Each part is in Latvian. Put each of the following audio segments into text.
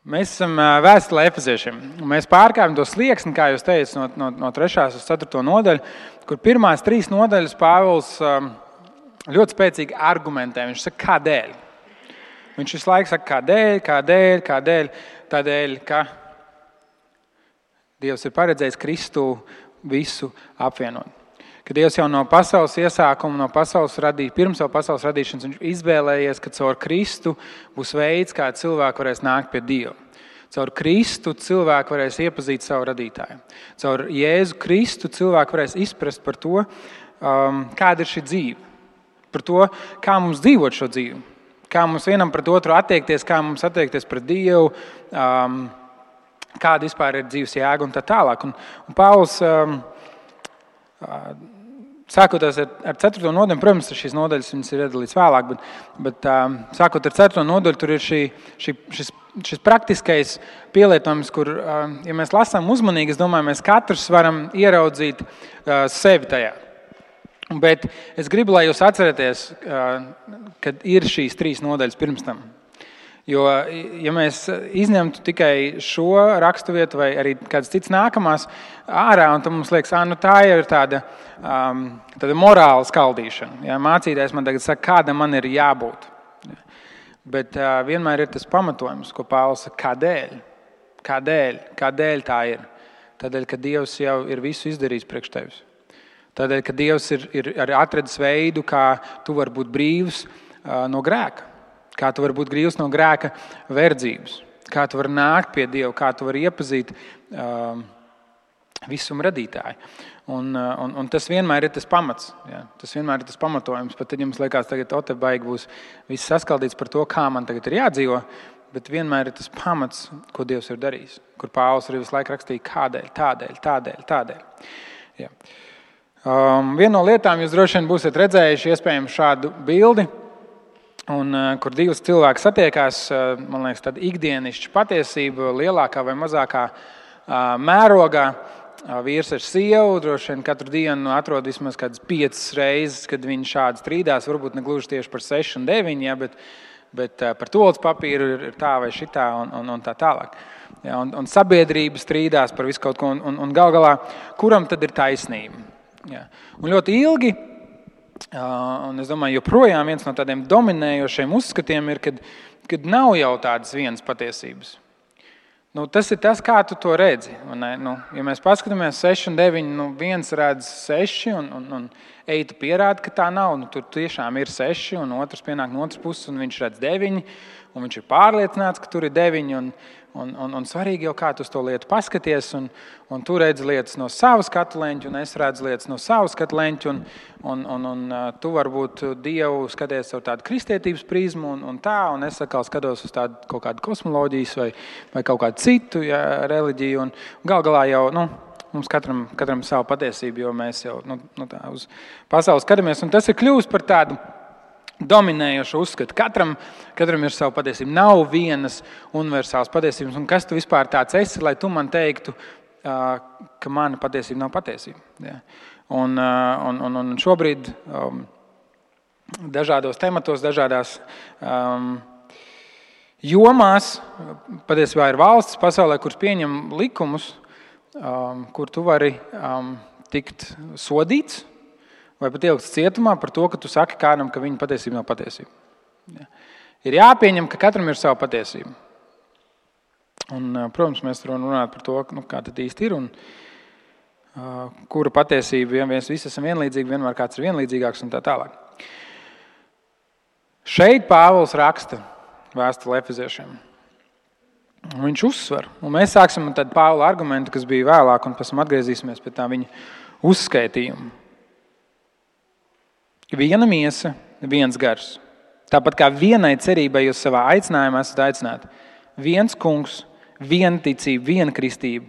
Mēs esam vēstulē Efeziešiem. Mēs pārkāpjam to slieksni, kā jūs teicat, no 3. uz 4. nodaļu, kur pirmās 3 nodaļas Pāvils ļoti spēcīgi argumentē. Viņš saka, kādēļ. Viņš visu laiku saka, kādēļ. Tādēļ, ka Dievs ir paredzējis Kristu visu apvienot. Ka Dievs jau no pasaules iesākuma, pirms jau pasaules radīšanas, viņš izvēlējies, ka caur Kristu būs veids, kā cilvēki varēs nākt pie Dieva. Caur Kristu cilvēki varēs iepazīt savu radītāju. Caur Jēzu Kristu cilvēki varēs izprast par to, kāda ir šī dzīve. Par to, kā mums dzīvot šo dzīvi. Kā mums vienam pret otru attiekties, kā mums attiekties pret Dievu, kāda vispār ir dzīves jēga un tā tālāk. Un Pāvils, sākot ar 4. nodaļu, protams, šīs nodaļas viņas ir iedalīts vēlāk, bet sākot ar 4. nodaļu, tur ir šis praktiskais pielietojums, kur, ja mēs lasām uzmanīgi, es domāju, mēs katrs varam ieraudzīt sevi tajā. Bet es gribu, lai jūs atceraties, kad ir šīs 3 nodaļas pirms tam. Jo, ja mēs izņemtu tikai šo raksturvietu vai arī kāds cits nākamās ārā, un tad mums liekas, tā ir tāda morāla skaldīšana. Ja, mācītājs man tagad saka, kāda man ir jābūt. Ja. Bet vienmēr ir tas pamatojums, ko Pāvils saka, kādēļ tā ir. Tādēļ, ka Dievs jau ir visu izdarījis priekš tevis. Tādēļ, ka Dievs ir atradis veidu, kā tu vari būt brīvs no grēka. Kā tu vari būt brīvs no grēka verdzības. Kā tu vari nākt pie Dieva, kā tu vari iepazīt visuma radītāju. Un tas vienmēr ir tas pamats. Ja? Tas vienmēr ir tas pamatojums. Pat tad jums liekas, tagad baigi būs viss saskaldīts par to, kā man tagad ir jādzīvo, bet vienmēr ir tas pamats, ko Dievs ir darījis. Kur Pāvils arī visu laiku rakstīja, tādēļ. Ja. Viena no lietām jūs droši vien būsiet redzējuši iespējams šādu bildi, un, kur divas cilvēki satiekās, man liekas, tāda ikdienišķa patiesība lielākā vai mazākā mērogā. Vīrs ar sievu droši vien katru dienu atrod vismaz kādas 5 reizes, kad viņi šādi strīdās, varbūt ne gluži tieši par 6 un 9, ja, bet par toaletes papīru ir tā vai šitā un tā tālāk. Ja, un sabiedrība strīdās par visu kaut ko, un gal galā, kuram tad ir taisnība? Ja. Un ļoti ilgi, un es domāju, joprojām viens no tādiem dominējošiem uzskatiem ir, kad nav jau tādas vienas patiesības. Tas ir tas, kā tu to redzi. Ja mēs paskatāmies 6 un 9, viens redz 6 un tu pierādi, ka tā nav. Tur tiešām ir 6 un otrs pienāk no otras puses un viņš redz 9 un viņš ir pārliecināts, ka tur ir 9 un svarīgi jau kā tu uz to lietu paskaties un tu redzi lietas no savas skatu leņķa un es redzu lietas no savas skatu leņķa un tu varbūt Dievu skaties ar tādu kristietības prizmu un es atkal skatos uz tādu kaut kādu kosmoloģijas vai kaut kādu citu reliģiju un gal galā jau, mums katram savu patiesību, jo mēs jau tā uz pasauli skatāmies un tas ir kļūst par tādu dominējošu uzskatu. Katram ir savu patiesību. Nav vienas universālas patiesības. Un kas tu vispār tāds esi, lai tu man teiktu, ka mana patiesība nav patiesība. Ja. Un šobrīd dažādos tematos, dažādās jomās, patiesībā ir valsts pasaulē, kuras pieņem likumus, kur tu vari tikt sodīts, vai pat ielikts cietumā par to, ka tu saki kādam, ka viņa patiesība nav patiesība. Ja. Ir jāpieņem, ka katram ir sava patiesība. Un, protams, mēs runājam par to, kā tad īsti ir un kura patiesība, ja mēs visi esam vienlīdzīgi, vienmēr kāds ir vienlīdzīgāks un tā tālāk. Šeit Pāvils raksta vēstuli Efeziešiem. Viņš uzsver, un mēs sāksim tad Pāvila argumentu, kas bija vēlāk, un pēc tam atgriezīsimies pie tā viņa uzskaitījuma. Viena miesa, viens gars. Tāpat kā vienai cerībai jūs savā aicinājumā esat aicināti. Viens kungs, viena ticība, viena kristība.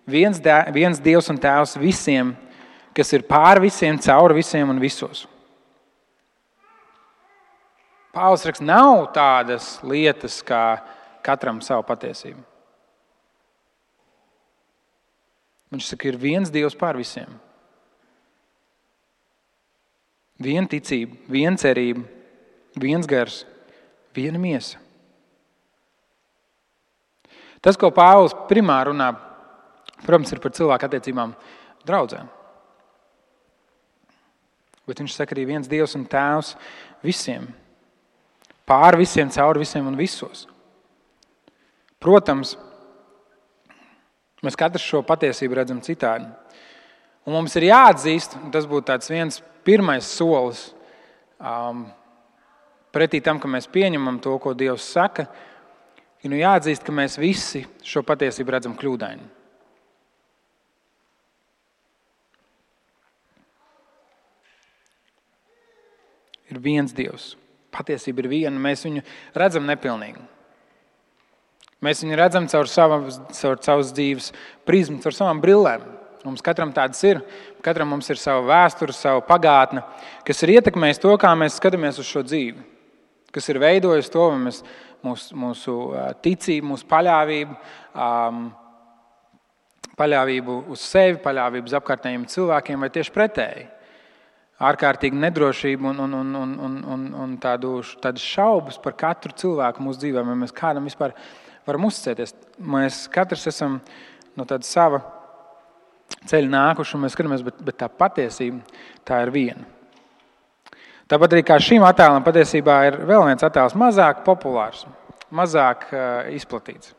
Viens Dievs un Tēvs visiem, kas ir pār visiem, caur visiem un visos. Pāvils raksta, nav tādas lietas, kā katram savu patiesību. Viņš saka, ir viens Dievs pār visiem. Viena ticība, viena cerība, viens gars, viena miesa. Tas, ko Pāvils primāri runā, protams, ir par cilvēku attiecībām draudzēm. Bet viņš saka arī viens Dievs un Tēvs visiem. Pār visiem, caur visiem un visos. Protams, mēs katrs šo patiesību redzam citādi. Un mums ir jāatzīst, un tas būtu tāds viens pirmais solis pretī tam, ka mēs pieņemam to, ko Dievs saka, ir jāatzīst, ka mēs visi šo patiesību redzam kļūdaini. Ir viens Dievs. Patiesība ir viena, mēs viņu redzam nepilnīgu. Mēs viņu redzam caur savas dzīves prizmu, caur savām brillēm. Mums katram tādas ir. Katram mums ir sava vēsture, sava pagātne, kas ir ietekmējis to, kā mēs skatāmies uz šo dzīvi. Kas ir veidojis to, mūsu ticību, mūsu paļāvību uz sevi, paļāvību uz apkārtējiem cilvēkiem vai tieši pretēji. Ārkārtīgi nedrošību un tādas šaubas par katru cilvēku mūsu dzīvē, vai mēs kādam vispār varam uzticēties. Mēs katrs esam no tāda sava ceļa nākuši, un mēs skatāmies, bet tā patiesība, tā ir viena. Tāpat arī kā šīm attēlam patiesībā ir vēl viens attēls mazāk populārs, mazāk izplatīts.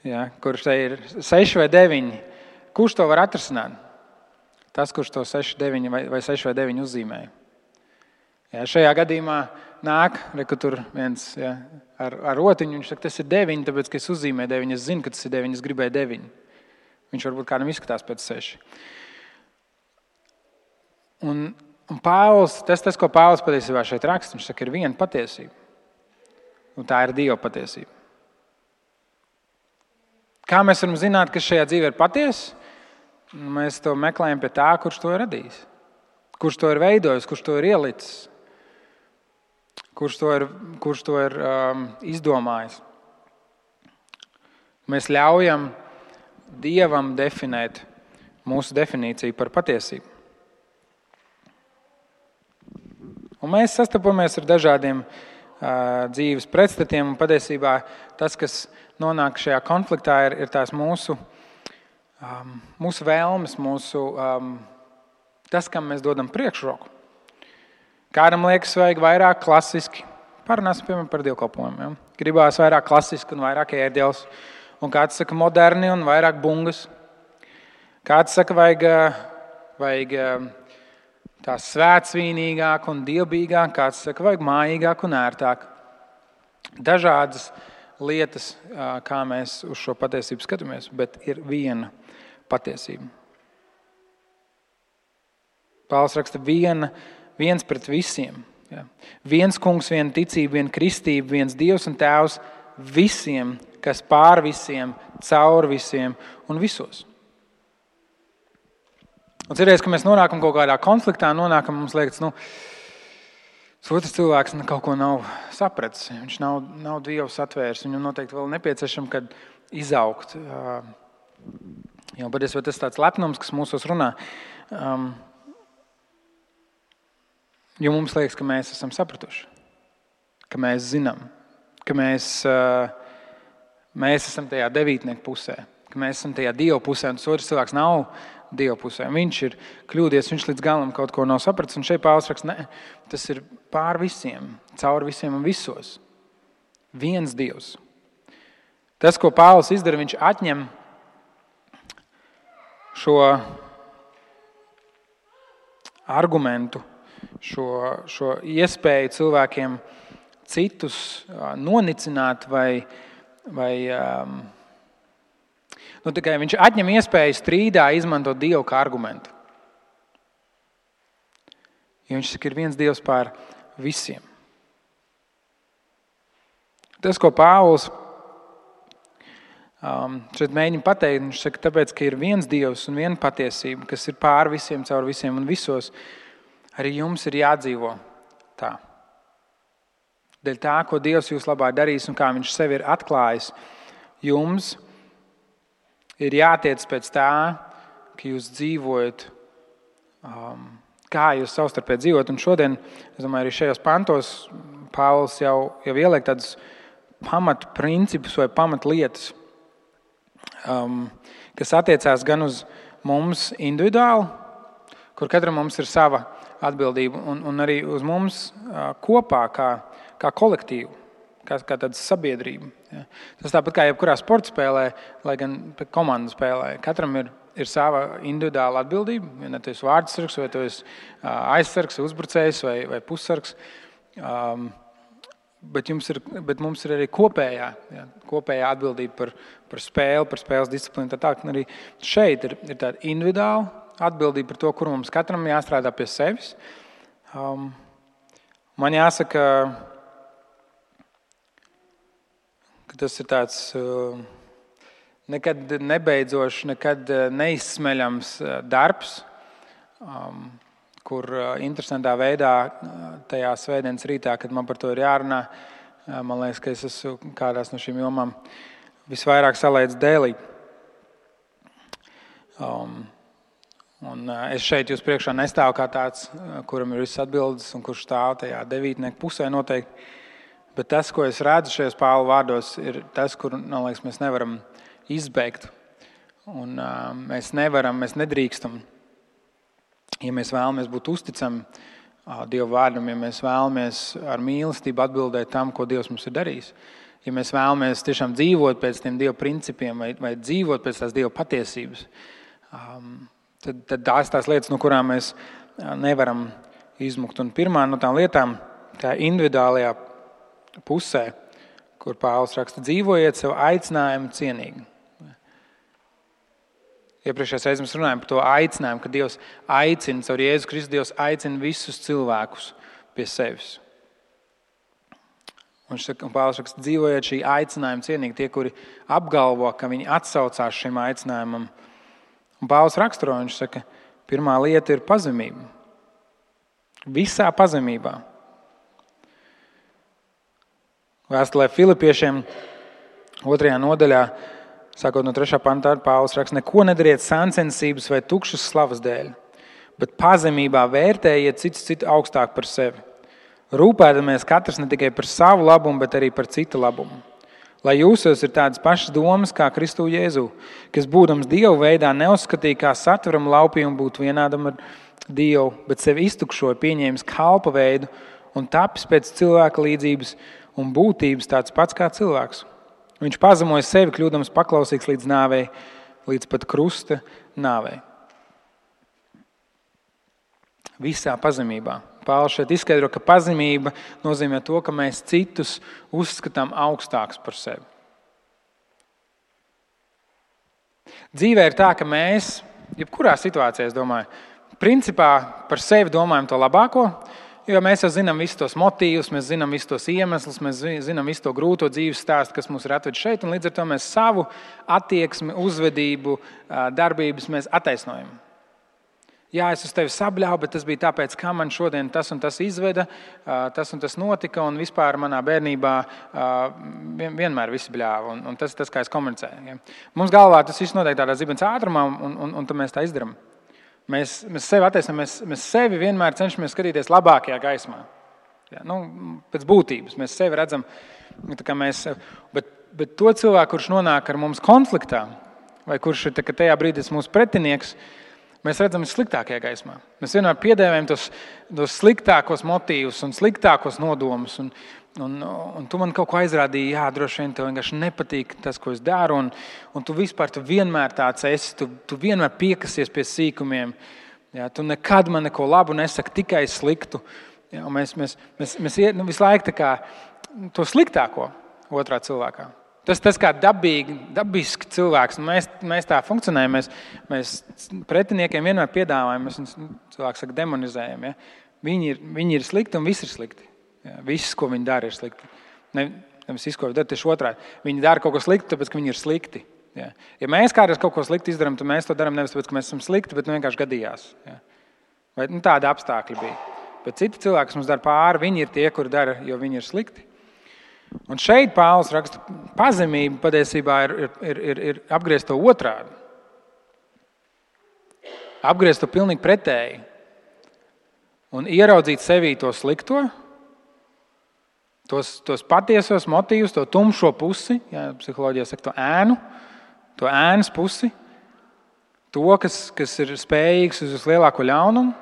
Ja, kurš te ir 6 vai 9. Kurš to var atrasināt? Tas, kurš to 6 vai 6 vai 9 uzzīmēja. Ja, šajā gadījumā nāk, ka tur viens ar rotiņu, viņš saka, tas ir 9, tāpēc, ka es uzzīmēju 9, es zinu, ka tas ir 9, es gribēju 9. Viņš varbūt kādam izskatās pēc 6. Un Pāvils, tas, ko Pāvils patiesībā šeit raksta, viņš saka, ir viena patiesība. Un tā ir Dieva patiesība. Kā mēs varam zināt, kas šajā dzīvē ir patiesa? Mēs to meklējam pie tā, kurš to ir radījis. Kurš to ir veidojis, kurš to ir ielicis. Kurš to ir izdomājis. Mēs ļaujam Dievam definēt mūsu definīciju par patiesību. Un mēs sastopamies ar dažādiem dzīves pretstatiem, un patiesībā tas, kas nonāk šajā konfliktā, ir tās mūsu vēlmes, tas, kam mēs dodam priekšroku. Kādam liekas vajag vairāk klasiski. Parunāsim, piemēram, par dievkalpojumiem. Ja? Gribās vairāk klasiski un vairāk ērģeles. Un kāds saka moderni un vairāk bungas. Kāds saka vajag tā svētsvīnīgāk un dievbīgāk. Kāds saka vajag mājīgāk un ērtāk. Dažādas lietas, kā mēs uz šo patiesību skatāmies, bet ir viena patiesība. Pāvils raksta viens pret visiem. Ja. Viens kungs, viena ticība, viena kristība, viens Dievs un Tēvs visiem, kas pār visiem, caur visiem un visos. Un cerēs, ka mēs nonākam kaut kādā konfliktā, mums liekas, otrs cilvēks kaut ko nav sapratis. Viņš nav Dievu satvērs. Viņam noteikti vēl nepieciešams, kad izaugt. Jo patiesībā tas tāds lepnums, kas mūsos runā. Jo mums liekas, ka mēs esam sapratuši. Ka mēs zinām. Ka mēs esam tajā devītnieku pusē. Ka mēs esam tajā Dieva pusē. Un tas otrs cilvēks nav Dieva pusē. Viņš ir kļūdies, viņš līdz galam kaut ko nav sapratis. Un šeit Pāvils raksta, ne, tas ir pār visiem, caur visiem un visos. Viens Dievs. Tas, ko Pāvils izdara, viņš atņem šo argumentu, šo iespēju cilvēkiem citus nonicināt vai tikai viņš atņem iespēju strīdā izmantot Dievu kā argumentu. Jo viņš saka, ir viens Dievs pār visiem. Tas, ko Pāvils šeit mēģina pateikt, viņš saka, tāpēc, ka ir viens Dievs un viena patiesība, kas ir pār visiem, caur visiem un visos, arī jums ir jādzīvo tā. Dēļ tā, ko Dievs jūs labā darīs un kā viņš sevi ir atklājis, jums ir jātiec pēc tā, ka jūs dzīvojat, kā jūs savstarpēji dzīvojat. Un šodien, es domāju, arī šajos pantos Pāvils jau ieliek tādus pamatprincipus vai pamatlietas, kas attiecās gan uz mums individuāli, kur katram mums ir sava atbildība, un arī uz mums kopā kā kolektīvu, kā tāda sabiedrība. Ja. Tas tāpat kā jebkurā sporta spēlē, lai gan komandu spēlē. Katram ir sava individuāla atbildība. Ja tu esi vārdsargs, vai tu esi aizsargs, uzbrucējs vai pussargs. Bet mums ir arī kopējā atbildība par spēli, par spēles disciplīnu. Tā arī šeit ir tāda individuāla atbildība par to, kur mums katram jāstrādā pie sevis. Man jāsaka, ka tas ir tāds nekad nebeidzošs, nekad neizsmeļams darbs, kur interesantā veidā tajā svētdienas rītā, kad man par to ir jārunā, man liekas, ka es esmu kādās no šīm jomām visvairāk salaicis dēlī. Un es šeit jūs priekšā nestāvu kā tāds, kuram ir visas atbildes un kurš stāv tajā devītnieku pusē noteikti. Bet tas, ko es redzu šajos Pāvila vārdos, ir tas, kur, man liekas, mēs nevaram izbeigt. Un mēs nedrīkstam. Ja mēs vēlamies būt uzticami Dieva vārdam, ja mēs vēlamies ar mīlestību atbildēt tam, ko Dievs mums ir darījis, ja mēs vēlamies tiešām dzīvot pēc tiem Dieva principiem vai dzīvot pēc tās Dieva patiesības, tad tās lietas, no kurām mēs nevaram izmukt. Un pirmā no tām lietām, tā individuālajā pusē, kur Pāvils raksta, dzīvojiet savu aicinājumu cienīgi. Iepriekšējās reizes mēs runājam par to aicinājumu, ka Dievs aicina, caur Jēzu Kristu Dievs aicina visus cilvēkus pie sevis. Un Pāvils raksta, dzīvojiet šī aicinājuma cienīgi, tie, kuri apgalvo, ka viņi atsaucās šim aicinājumam. Un Pāvils raksturo, viņš saka, pirmā lieta ir pazemība. Visā pazemībā. Vēstulē Filipiešiem 2. nodaļā, sākot no 3. pantā, Pāvils raksta, neko nedariet sāncensības vai tukšas slavas dēļ, bet pazemībā vērtējiet citu augstāk par sevi. Rūpēdamies katrs ne tikai par savu labumu, bet arī par citu labumu. Lai jūsos ir tādas pašas domas kā Kristu Jēzu, kas būdams Dievu veidā neuzskatīja kā satveram laupījumu būt vienādam ar Dievu, bet sevi iztukšoja, pieņēmis kalpa veidu un tapis pēc cilvēka līdzības un būtības tāds pats kā cilvēks. Viņš pazemoja sevi, kļūdams paklausīgs līdz nāvei, līdz pat krusta nāvei. Visā pazemībā. Pāvils šeit izskaidro, ka pazemība nozīmē to, ka mēs citus uzskatām augstāks par sevi. Dzīvē ir tā, ka mēs, jebkurā situācijā, es domāju, principā par sevi domājam to labāko, jo mēs jau zinām visus tos motīvus, mēs zinām visus tos iemeslus, mēs zinām visu to grūto dzīves stāstu, kas mūs ir atvedis šeit, un līdz ar to mēs savu attieksmi, uzvedību, darbības mēs attaisnojam. Jā, es uz tevi sabļāvu, bet tas bija tāpēc, kā man šodien tas un tas izveda, tas un tas notika, un vispār manā bērnībā vienmēr visi bļāva, un tas, kā es komunicēju. Ja. Mums galvā tas viss notiek tādā zibens ātrumā, un tad mēs tā izdarām. Mēs sevi attaisnojam, mēs sevi vienmēr cenšamies skatīties labākajā gaismā. Ja, pēc būtības mēs sevi redzam, bet to cilvēku, kurš nonāk ar mums konfliktā, vai kurš ir tajā brīdī mūsu pretinieks, mēs redzam sliktākajā gaismā. Mēs vienmēr piedēvējam tos sliktākos motīvus un sliktākos nodomus. Un tu man kaut ko aizrādīji, jā, droši vien tev vienkārši nepatīk tas, ko es daru, un tu vienmēr tāds esi, tu vienmēr piekasies pie sīkumiem, jā, tu nekad man neko labu nesaki, tikai sliktu. Jā, mēs visu laiku tā kā to sliktāko otrā cilvēkā. Tas kā dabiski cilvēks, mēs tā funkcionējam, mēs pretiniekiem vienmēr piedāvājam, mēs cilvēks saka demonizējam, ja? Viņi ir slikti un viss ir slikti. Jā, viss, ko viņi dara, ir slikti. Nevis viss, ko viņi dara, tieši otrādi. Viņi dara kaut ko sliktu, tāpēc, ka viņi ir slikti. Jā. Ja mēs kādreiz kaut ko sliktu izdarām, tad mēs to darām nevis tāpēc, ka mēs esam slikti, bet vienkārši gadījās. Jā. Vai tādi apstākļi bija. Bet citi cilvēki, kas mums dara pāri, viņi ir tie, kuri dara, jo viņi ir slikti. Un šeit Pāvils raksta, pazemība patiesībā ir apgriezt to otrādi. Apgriezt to pilnīgi pretēji. Un ieraudzīt sevī to slikto, tos patiesos motīvus, to tumšo pusi, ja, psiholoģijā saka to ēnas pusi, to, kas ir spējīgs uz vislielāko ļaunumu.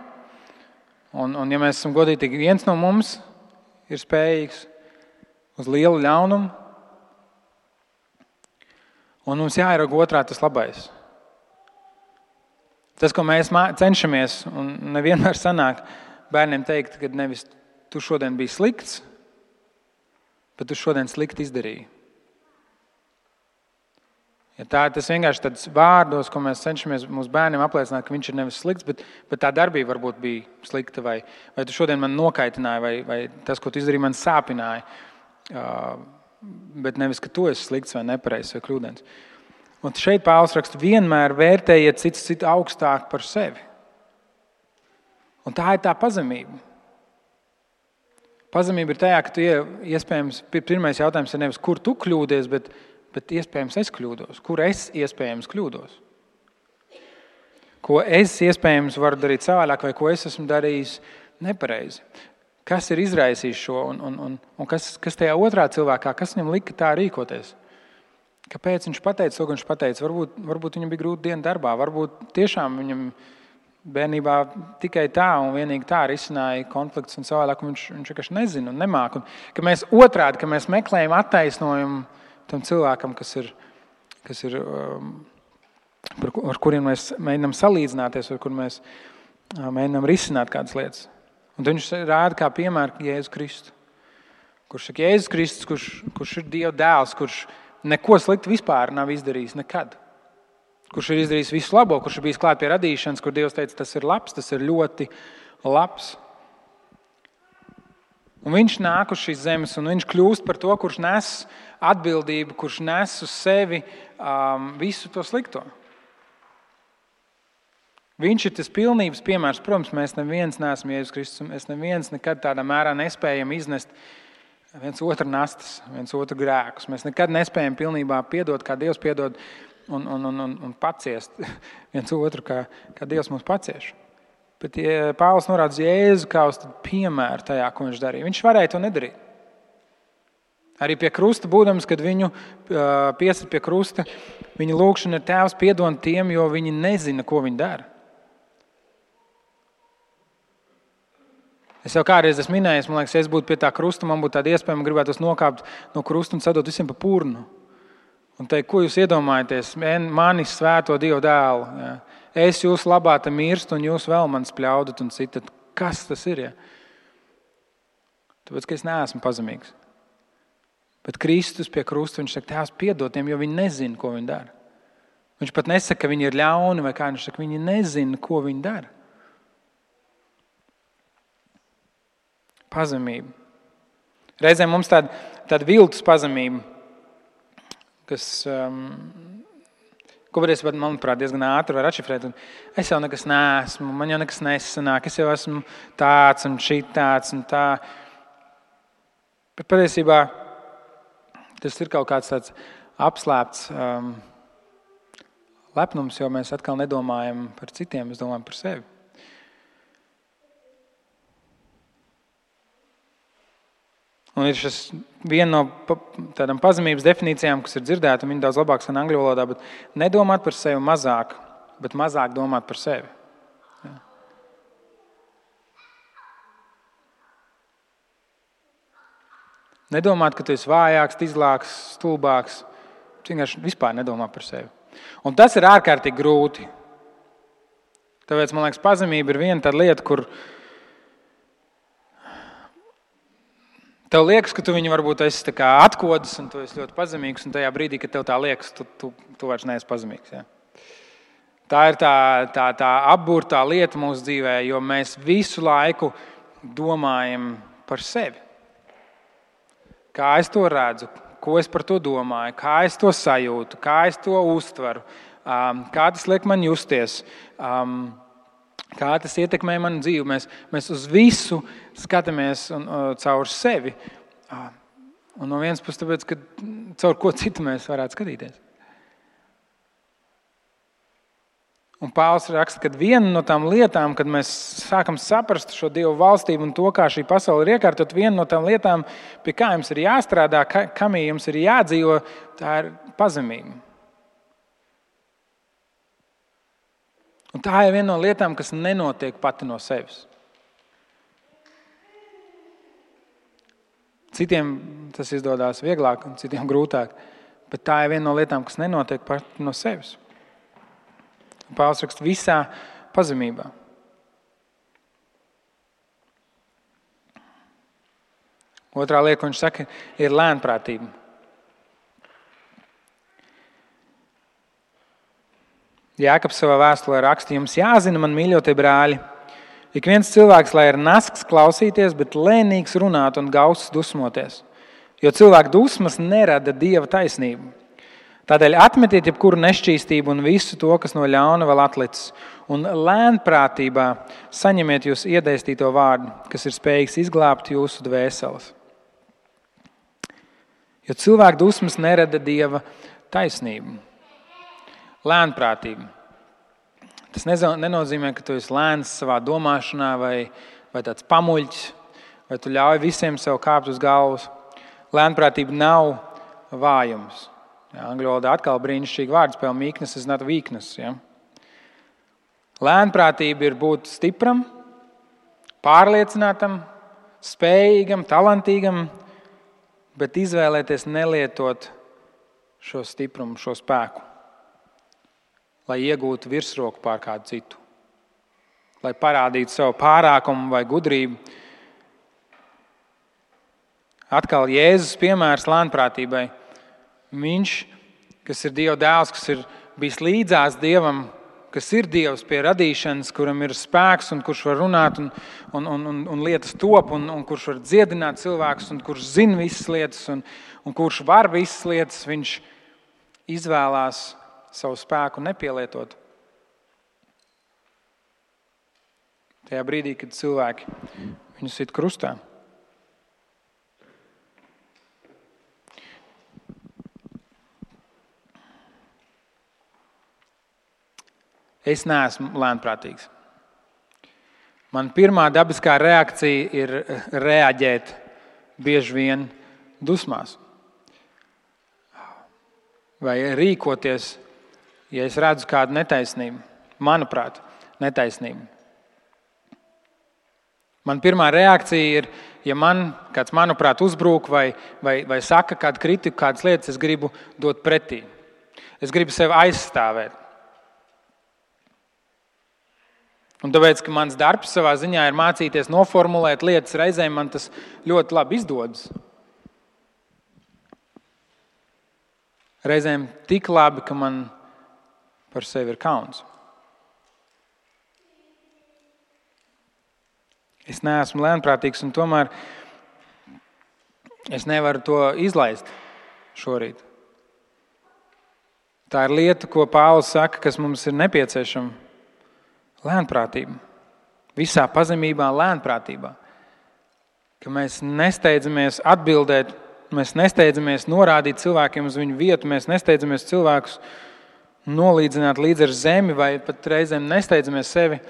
Un ja mēs esam godīgi, viens no mums ir spējīgs uz lielu ļaunumu, un mums jāierauga otrā tas labais. Tas, ko mēs cenšamies, un nevienmēr sanāk bērniem teikt, ka nevis tu šodien biji slikts, bet tu šodien slikti izdarīji. Ja tas vienkārši tāds vārdos, ko mēs cenšamies mūsu bērniem apliecināt, ka viņš ir nevis slikts, bet tā darbība varbūt bija slikta, vai tu šodien man nokaitināji, vai tas, ko tu izdarīji, man sāpināja, bet nevis, ka tu esi slikts vai nepareizs vai kļūdains. Un šeit Pāvils raksta, vienmēr vērtējiet citu augstāk par sevi. Un tā ir tā pazemība. Pazemība ir tajā, ka tu iespējams, pirmais jautājums ir nevis, kur tu kļūdies, bet iespējams es kļūdos. Kur es iespējams kļūdos? Ko es iespējams varu darīt savādāk, vai ko es esmu darījis nepareizi? Kas ir izraisījis šo un kas tajā otrā cilvēkā, kas viņam lika tā rīkoties? Kāpēc viņš pateica to, ka viņš pateica? Varbūt viņam bija grūta diena darbā, varbūt tiešām viņam bērnībā tikai tā un vienīgi tā risināja konflikts un savādāk, un viņš vienkārši nezina un nemāk. Un, ka mēs otrādi, ka mēs meklējam attaisnojumu tam cilvēkam, kas ir ar kuriem mēs mēģinām salīdzināties, ar kuriem mēs mēģinām risināt kādas lietas. Un viņš rāda kā piemēru Jēzu Kristu. Kurš saka, Jēzus Kristus, kurš ir Dieva dēls, kurš neko sliktu vispār nav izdarījis nekad. Kurš ir izdarījis visu labo, kurš ir bijis klāt pie radīšanas, kur Dievs teica, tas ir labs, tas ir ļoti labs. Un viņš nāk uz šīs zemes, un viņš kļūst par to, kurš nes atbildību, kurš nes uz sevi visu to slikto. Viņš ir tas pilnības piemērs. Protams, mēs neviens neesam Jēzus Kristus, mēs neviens nekad tādā mērā nespējam iznest viens otru nastas, viens otru grēkus. Mēs nekad nespējam pilnībā piedot, kā Dievs piedod, un paciest viens otru, kā Dievs mums pacieš. Bet Pāvils norāda uz Jēzu kā uz piemēru tajā, ko viņš darīja. Viņš varēja to nedarīt. Arī pie krusta būdams, kad viņu piesit pie krusta, viņa lūgšana ir Tēvs piedod tiem, jo viņi nezina, ko viņi dara. Es jau kādreiz esmu minējis, man liekas, ja es būtu pie tā krusta, man būtu tāda iespēja, man gribētos nokāpt no krusta un sadot visiem pa purnu. Un teikt, ko jūs iedomājaties? Manis svēto Dievu dēlu. Ja? Es jūs labā te mirstu un jūs vēl man spļaudat un citat. Kas tas ir? Ja? Tāpēc, ka es neesmu pazemīgs. Bet Kristus pie krusta, viņš saka, Tēvs piedod tiem, jo viņi nezina, ko viņi dara. Viņš pat nesaka, ka viņi ir ļauni vai kā, viņš saka, viņi nezina, ko viņi dara. Pazemība. Reizēm mums tāda viltus pazemība, kas, ko varēs, manuprāt, diezgan ātri var atšifrēt. Es jau nekas neesmu, man jau nekas nesanāk, es jau esmu tāds un šitāds un tā. Bet patiesībā tas ir kaut kāds tāds apslēpts lepnums, jo mēs atkal nedomājam par citiem, mēs domājam par sevi. Un ir šis viena no tādām pazemības definīcijām, kas ir dzirdēta, un viņa daudz labāk skan angļu valodā, bet nedomāt par sevi mazāk, bet mazāk domāt par sevi. Ja. Nedomāt, ka tu esi vājāks, izlāks, stulbāks, vienkārši vispār nedomā par sevi. Un tas ir ārkārtīgi grūti. Tāpēc, man liekas, pazemība ir viena tāda lieta, kur tev liekas, ka tu viņu varbūt esi tā kā atkodis un tu esi ļoti pazemīgs, un tajā brīdī, kad tev tā liekas, tu vairs neesi pazemīgs. Ja? Tā ir tā apburtā lieta mūsu dzīvē, jo mēs visu laiku domājam par sevi. Kā es to redzu, ko es par to domāju, kā es to sajūtu, kā es to uztveru, kā tas liek man justies, kā tas ietekmē manu dzīvi. Mēs uz visu skatāmies caur sevi. Un no vienas puses, tāpēc, ka caur ko citu mēs varētu skatīties. Un Pāvils raksta, ka viena no tām lietām, kad mēs sākam saprast šo Dievu valstību un to, kā šī pasaule ir iekārtot, viena no tām lietām, pie kā jums ir jāstrādā, kam jums ir jādzīvo, tā ir pazemība. Un tā ir viena no lietām, kas nenotiek pati no sevis. Citiem tas izdodas vieglāk un citiem grūtāk, bet tā ir viena no lietām, kas nenotiek pati no sevis. Pāvils raksta visā pazemībā. Otrā lieta, ko viņš saka, ir lēnprātība. Jākabs savā vēstulē raksta, jums jāzina, man mīļotie brāļi, ik viens cilvēks, lai ir nasks klausīties, bet lēnīgs runāt un gauss dusmoties, jo cilvēku dusmas nerada Dieva taisnību. Tādēļ atmetiet jebkuru nešķīstību un visu to, kas no ļauna vēl atlicis, un lēnprātībā saņemiet jūs iedēstīto vārdu, kas ir spējīgs izglābt jūsu dvēseles. Jo cilvēku dusmas nerada Dieva taisnību. Lēnprātība. Tas nenozīmē, ka tu esi lēns savā domāšanā vai tāds pamuļķis, vai tu ļauj visiem sev kāpt uz galvas. Lēnprātība nav vājums. Angļu valodā atkal brīnišķīga vārdspēle meekness is not weakness. Ja? Lēnprātība ir būt stipram, pārliecinātam, spējīgam, talantīgam, bet izvēlēties nelietot šo stiprumu, šo spēku, lai iegūtu virsroku pār kādu citu, lai parādītu savu pārākumu vai gudrību. Atkal Jēzus piemērs lēnprātībai. Viņš, kas ir Dieva dēls, kas ir bijis līdzās Dievam, kas ir Dievs pie radīšanas, kuram ir spēks un kurš var runāt un lietas top un kurš var dziedināt cilvēkus un kurš zina visas lietas un kurš var visas lietas, viņš izvēlās savu spēku nepielietot. Tajā brīdī, kad cilvēki viņu sit krustā. Es neesmu lēnprātīgs. Man pirmā dabiskā reakcija ir reaģēt bieži vien dusmās. Vai rīkoties, ja es redzu kādu netaisnību. Manuprāt, netaisnību. Man pirmā reakcija ir, ja man kāds, manuprāt, uzbrūk vai saka kādu kritiku, kādas lietas, es gribu dot pretī. Es gribu sevi aizstāvēt. Un tāpēc, ka mans darbs savā ziņā ir mācīties noformulēt lietas, reizēm man tas ļoti labi izdodas. Reizēm tik labi, ka man par sevi ir kauns. Es neesmu lēnprātīgs un tomēr es nevaru to izlaist šorīt. Tā ir lieta, ko Pāvils saka, kas mums ir nepieciešama. Lēnprātība. Visā pazemībā lēnprātībā. Ka mēs nesteidzamies atbildēt, mēs nesteidzamies norādīt cilvēkiem uz viņu vietu, mēs nesteidzamies cilvēkus nolīdzināt līdz ar zemi vai pat reizēm nesteidzamies sevi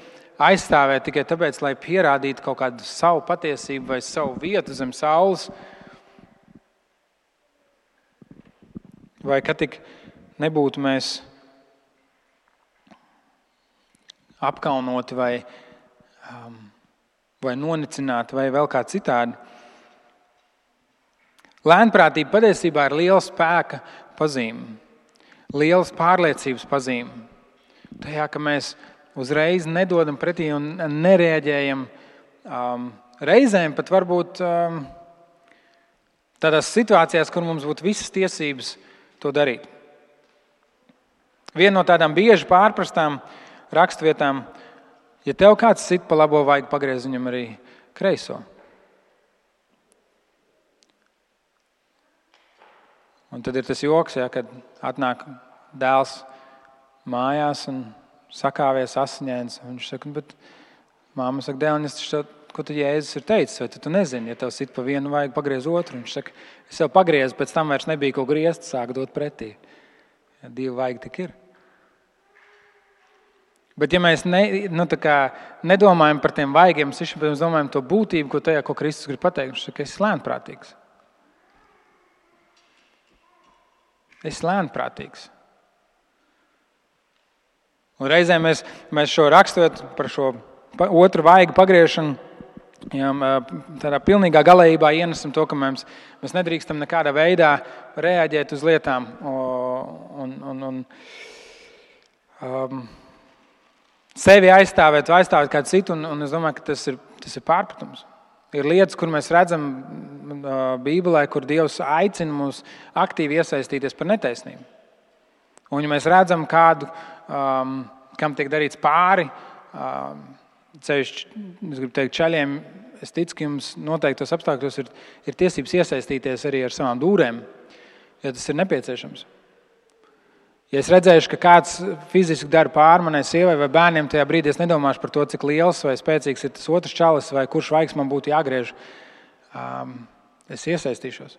aizstāvēt tikai tāpēc, lai pierādītu kaut kādu savu patiesību vai savu vietu zem saules. Vai ka tik nebūtu mēs apkaunoti vai nonicināti vai vēl kā citādi. Lēnprātība patiesībā ir liela spēka pazīme, lielas pārliecības pazīme. Tajā, ka mēs uzreiz nedodam pretī un nereaģējam. Reizēm pat varbūt tādās situācijās, kur mums būtu visas tiesības to darīt. Viena no tādām bieži pārprastām rakstvietām, ja tev kāds sit pa labo, vajag pagriezt viņam arī kreiso. Un tad ir tas joks, ja, kad atnāk dēls mājās un sakāvies asiņains. Viņš saka, bet māma saka, dēliņas, ko tu Jēzus ir teicis, vai tu nezini, ja tev sit pa vienu, vajag pagriezt otru. Viņš saka, es jau pagriezu, pēc tam vairs nebija ko griezt, sāk dot pretī. Ja divi vajag tik ir. Bet ja mēs nedomājam par tiem vaigiem, mēs domājam to būtību, ko Kristus grib pateikt. Viņš saka, ka esi lēnprātīgs. Esi lēnprātīgs. Un reizē mēs šo rakstot par šo otru vaigu pagriešanu, tādā pilnīgā galējībā ienesam to, ka mēs nedrīkstam nekādā veidā reaģēt uz lietām un sevi aizstāvēt vai aizstāvēt kādu citu, un es domāju, ka tas ir pārpratums. Ir lietas, kur mēs redzam Bībelē, kur Dievs aicina mūs aktīvi iesaistīties par netaisnību. Un ja mēs redzam kādu, kam tiek darīts pāri, ceļš, es gribu teikt, čaļiem, es ticu, ka jums noteiktos apstākļos ir tiesības iesaistīties arī ar savām dūrēm, ja tas ir nepieciešams. Ja es redzēšu, ka kāds fiziski dara pāri manai sievai vai bērniem, tajā brīdī es nedomāšu par to, cik liels vai spēcīgs ir tas otrs čalis vai kurš vaigs man būtu jāgriež. Es iesaistīšos.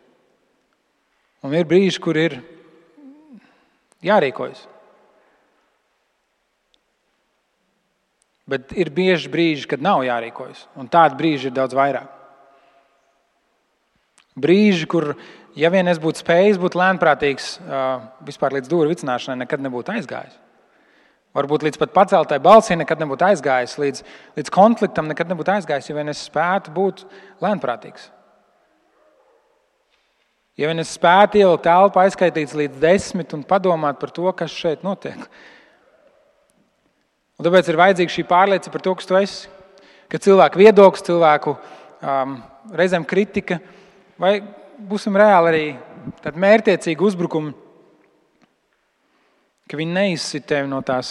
Un ir brīži, kur ir jārīkojas. Bet ir bieži brīži, kad nav jārīkojas. Un tādi brīži ir daudz vairāk. Brīži, kur, ja vien es būtu spējis būt lēnprātīgs, vispār līdz dūru vicināšanai nekad nebūtu aizgājis. Varbūt līdz pat paceltai balsī nekad nebūtu aizgājis, līdz konfliktam nekad nebūtu aizgājis, ja vien es spētu būt lēnprātīgs. Ja vien es spētu ielikt elpu, aizskaitīts līdz 10 un padomāt par to, kas šeit notiek. Un tāpēc ir vajadzīga šī pārliecība par to, kas tu esi. Ka cilvēku viedoklis, cilvēku reizēm kritika, vai būsim reāli arī tādi mērķtiecīgi uzbrukumi, ka viņi neizsit tevi no tā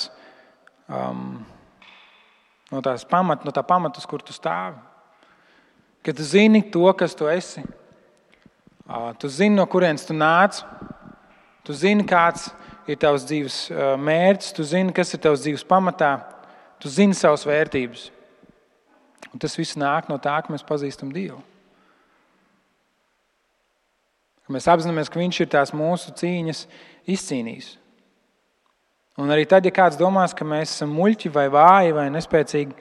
pamata, uz kur tu stāvi. Ka tu zini to, kas tu esi. Tu zini, no kurienes tu nāc. Tu zini, kāds ir tavs dzīves mērķis. Tu zini, kas ir tavs dzīves pamatā. Tu zini savas vērtības. Un tas viss nāk no tā, ka mēs pazīstam Dievu. Ka mēs apzināmies, ka Viņš ir tās mūsu cīņas izcīnījis. Un arī tad, ja kāds domās, ka mēs esam muļķi vai vāji vai nespēcīgi,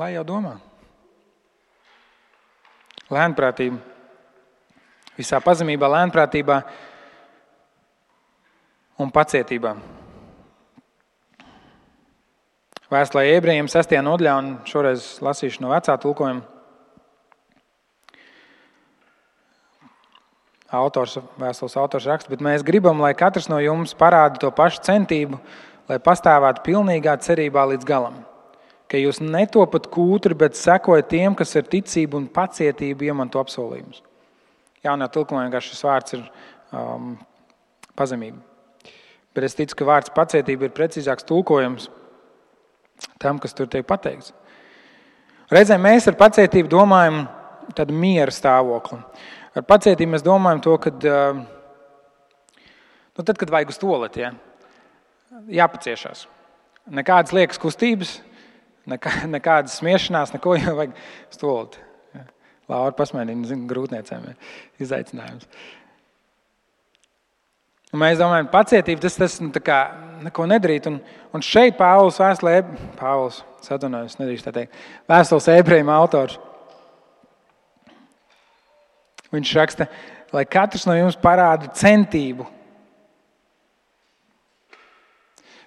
lai jau domā. Lēnprātība. Visā pazemībā, lēnprātībā un pacietībā. Vēstulē Ebrejiem 6. nodaļā, un šoreiz lasīšu no vecā tulkojuma. Vēstules autors raksta, bet mēs gribam, lai katrs no jums parāda to pašu centību, lai pastāvētu pilnīgā cerībā līdz galam. Ka jūs netopat kūtri, bet sekojat tiem, kas ar ticību un pacietību iemanto apsolījumus. Jaunajā tulkojumā šis vārds ir pazemība. Bet es ticu, ka vārds pacietība ir precīzāks tulkojums tam, kas tur tiek pateikts. Reizēm mēs ar pacietību domājam tādu miera stāvokli. Ar pacietību mēs domājam to, kad tad, kad vajag uz tualeti, jāpaciešās. Nekādas liekas kustības, nekādas smiešanās, neko, jo vajag uz tualeti. Laura pasmēdina, grūtniecēm izaicinājums. Un mēs domājam, pacietība, tas neko nedarīt. Un šeit Vēstules Ebrejiem autors. Viņš raksta, lai katrs no jums parāda centību.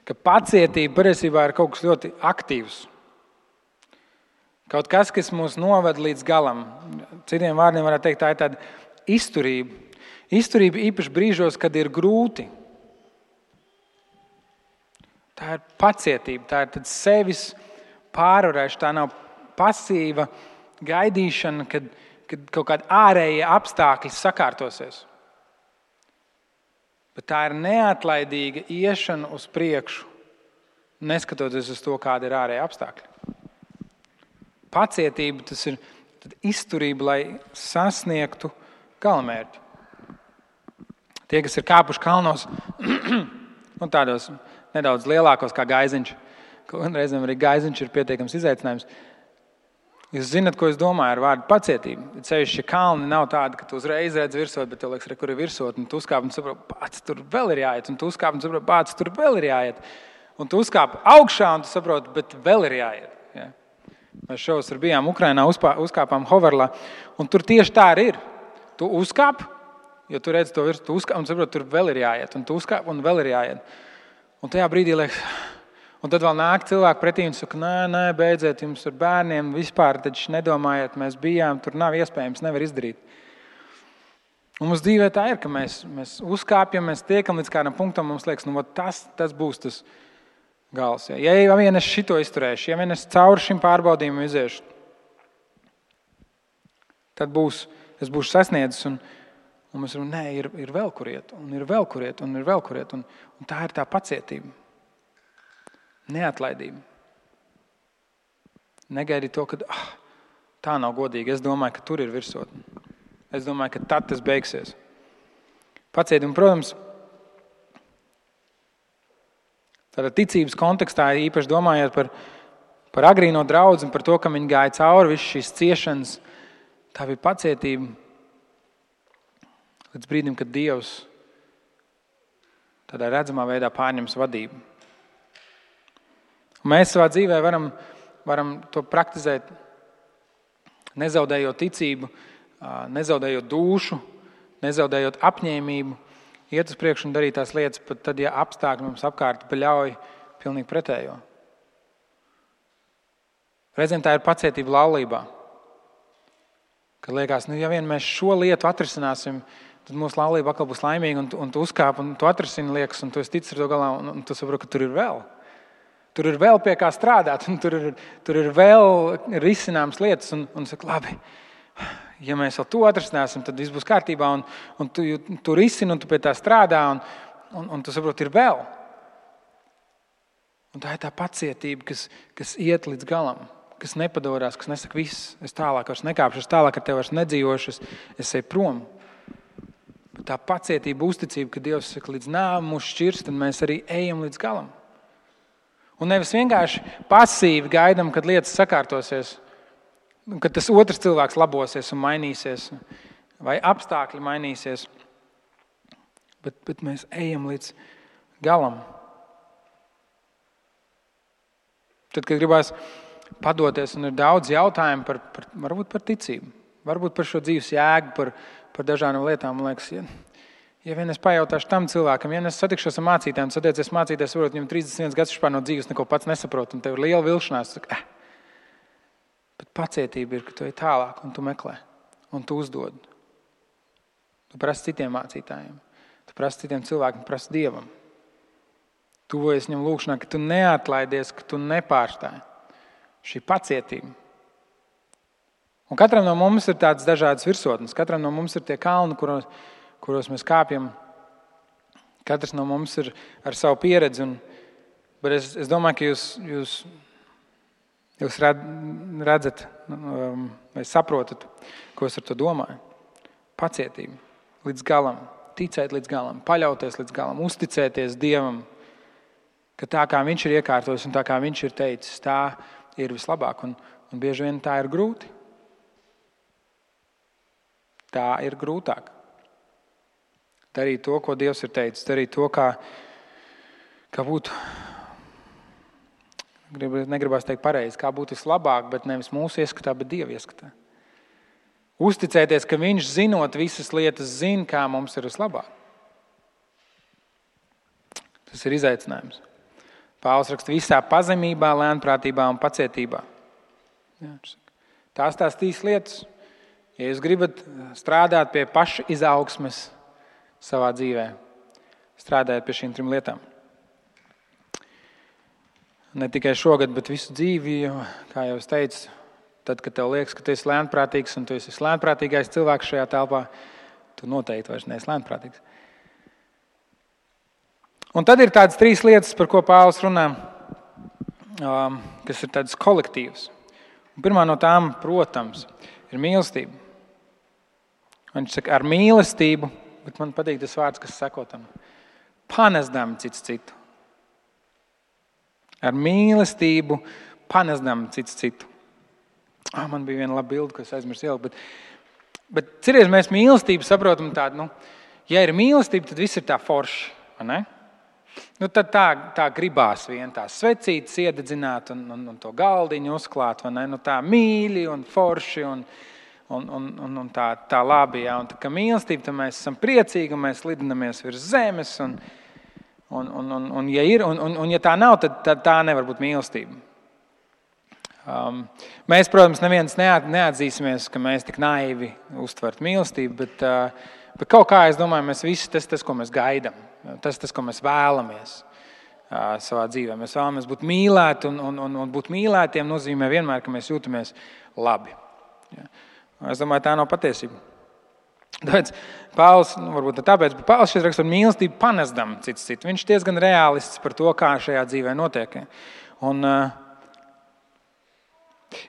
Ka pacietība patiesībā ir kaut kas ļoti aktīvs. Kaut kas mūs noved līdz galam. Citiem vārdiem varētu teikt, tā ir tāda izturība. Izturība īpaši brīžos, kad ir grūti. Tā ir pacietība, tā ir sevis pārvarēšana, tā nav pasīva gaidīšana, kad kaut kādi ārējie apstākļi sakārtosies. Bet tā ir neatlaidīga iešana uz priekšu, neskatoties uz to, kāda ir ārējie apstākļi. Pacietība, tas ir izturība, lai sasniegtu galamērķi. Tie, kas ir kāpuši kalnos, tādos nedaudz lielākos kā Gaiziņš, un reizēm arī Gaiziņš ir pietiekams izaicinājums. Jūs zināt, ko es domāju ar vārdu pacietību. Ceļš, ja kalni nav tādi, ka tu uzreiz redz virsot, bet tev liekas, kur ir virsot, un tu uzkāp un saproti, pats tur vēl ir jāiet, un tu uzkāp un saproti, pats tur vēl ir jāiet. Un tu uzkāp augšā un tu saproti, bet vēl ir jāiet. Ja? Mēs šovasar bijām Ukrainā, uzkāpām Hoverlā, un tur tieši tā arī ir. Tu uzkāp, jo tu redzi to virsmu, tu uzkāp un saproti, tur vēl ir jāiet. Un tu uzkāp un vēl ir jāiet. Un tajā brīdī liekas, un tad vēl nāk cilvēki pretī un saka, nē, beidziet, jums ar bērniem vispār, taču nedomājiet, mēs bijām, tur nav iespējams, nevar izdarīt. Un mums dzīvē tā ir, ka mēs uzkāpjam, mēs tiekam līdz kādam punktam, mums liekas, tas būs tas gals. Ja vien es šito izturēšu, ja vien es cauri šim pārbaudījumam iziešu, tad es būšu sasniedzis un mēs varam, ir vēl kur iet, un ir vēl kur iet, un ir vēl kur iet. Un tā ir tā pacietība. Neatlaidība. Negaidi to, ka tā nav godīgi. Es domāju, ka tur ir virsotne. Es domāju, ka tad tas beigsies. Pacietība, protams, tādā ticības kontekstā, īpaši domājot par agrīno draudzi un par to, ka viņi gāja cauri visu šīs ciešanas, tā bija pacietība līdz brīdim, kad Dievs tādā redzamā veidā pārņems vadību. Un mēs savā dzīvē varam to praktizēt, nezaudējot ticību, nezaudējot dušu, nezaudējot apņēmību, iet uz priekšu un darīt tās lietas, pat tad, ja apstākļi mums apkārt ļauj pilnīgi pretējo. Reizēm tā ir pacietība laulībā. Kad liekas, ja vien mēs šo lietu atrisināsim, tad mūsu laulība atkal būs laimīga, un tu uzkāp, un tu atrisini liekas, un tu esi ticis ar to galā, un tu saproti, ka tur ir vēl. Tur ir vēl pie kā strādāt, un tur ir vēl risināmas lietas, un saka, labi, ja mēs vēl to atrisināsim, tad viss būs kārtībā, un tu risini, un tu pie tā strādā, un tu saproti, ir vēl. Un tā ir tā pacietība, kas iet līdz galam, kas nepadorās, kas nesaka, viss, es tālāk vairs nekāpšu, es tālāk ar tevi vairs nedzīvošu, es eju prom. Bet tā pacietība, uzticība, ka Dievs saka, līdz nāvei mūs šķirs, tad mēs arī ejam līdz galam. Un nevis vienkārši pasīvi gaidam, kad lietas sakārtosies, kad tas otrs cilvēks labosies un mainīsies, vai apstākļi mainīsies, bet mēs ejam līdz galam. Tad, kad gribās padoties, un ir daudz jautājumu varbūt par ticību, varbūt par šo dzīves jēgu, par dažādām lietām, man liekas, ja vien es pajautāšu tam cilvēkam, ja es satikšos ar mācītājiem, satiecies mācītājs, varbūt viņam 31 gads vispār no dzīves neko pats nesaprot, un tev ir liela vilšanās, saka, Bet pacietība ir, ka tu ej tālāk un tu meklē, un tu uzdod. Tu prasi citiem mācītājiem, tu prasi citiem cilvēkiem, prasi Dievam. Tuvojies viņam lūkšanā, ka tu neatlaidies, ka tu nepārstāji. Šī pacietība. Un katram no mums ir tādas dažādas virsotnes. Katram no mums ir tie kalni, kuros mēs kāpjam. Katrs no mums ir ar savu pieredzi. Bet es domāju, ka jūs redzat vai saprotat, ko es ar to domāju. Pacietība līdz galam, ticēt līdz galam, paļauties līdz galam, uzticēties Dievam, ka tā kā Viņš ir iekārtojis un tā kā Viņš ir teicis, tā ir vislabāk. Un bieži vien tā ir grūti. Tā ir grūtāk. Darīt to, ko Dievs ir teicis, darīt to, kā būtu, negribās teikt pareizi, kā būtu vislabāk, bet nevis mūsu ieskatā, bet Dieva ieskatā. Uzticēties, ka Viņš zinot visas lietas, zina, kā mums ir vislabāk. Tas ir izaicinājums. Pāvils raksta visā pazemībā, lēnprātībā un pacietībā. Tās trīs lietas. Ja jūs gribat strādāt pie paša izaugsmes savā dzīvē, strādājiet pie šīm 3 lietām. Ne tikai šogad, bet visu dzīvi, jo, kā jau es teicu, tad, kad tev liekas, ka tu esi lēnprātīgs un tu esi lēnprātīgais cilvēks šajā telpā, tu noteikti vairs neesi lēnprātīgs. Un tad ir tādas 3 lietas, par ko Pāvils runā, kas ir tādas kolektīvas. Un pirmā no tām, protams, ir mīlestība. Viņš saka, ar mīlestību, bet man patīk tas vārds, kas sako tam, panesdam cits citu. Ar mīlestību panesdam cits citu. Man bija viena laba bilde, ko es aizmirsu ielikt, bet cerēs mēs mīlestību saprotam tādu, ja ir mīlestība, tad viss ir tā forši, vai ne? Nu, tad tā gribās vien tās svecītes iededzināt un to galdiņu uzklāt, vai ne? Nu, tā mīļi un forši un tā labi. Ja? Un tā kā mīlestība, tad mēs esam priecīgi un mēs lidinamies virs zemes. Ja tā nav, tad tā nevar būt mīlestība. Mēs, protams, neviens neatzīsimies, ka mēs tik naivi uztvert mīlestību, bet kaut kā, es domāju, mēs visi tas, ko mēs gaidām, tas, ko mēs vēlamies savā dzīvē. Mēs vēlamies būt mīlēti, un būt mīlētiem nozīmē vienmēr, ka mēs jūtamies labi. Ja. Es domāju, tā nav patiesība. Tāpēc Pāvils, varbūt tāpēc, bet Pāvils šeit raksta par mīlestību panesdam cits citu. Viņš diezgan realists par to, kā šajā dzīvē notiek.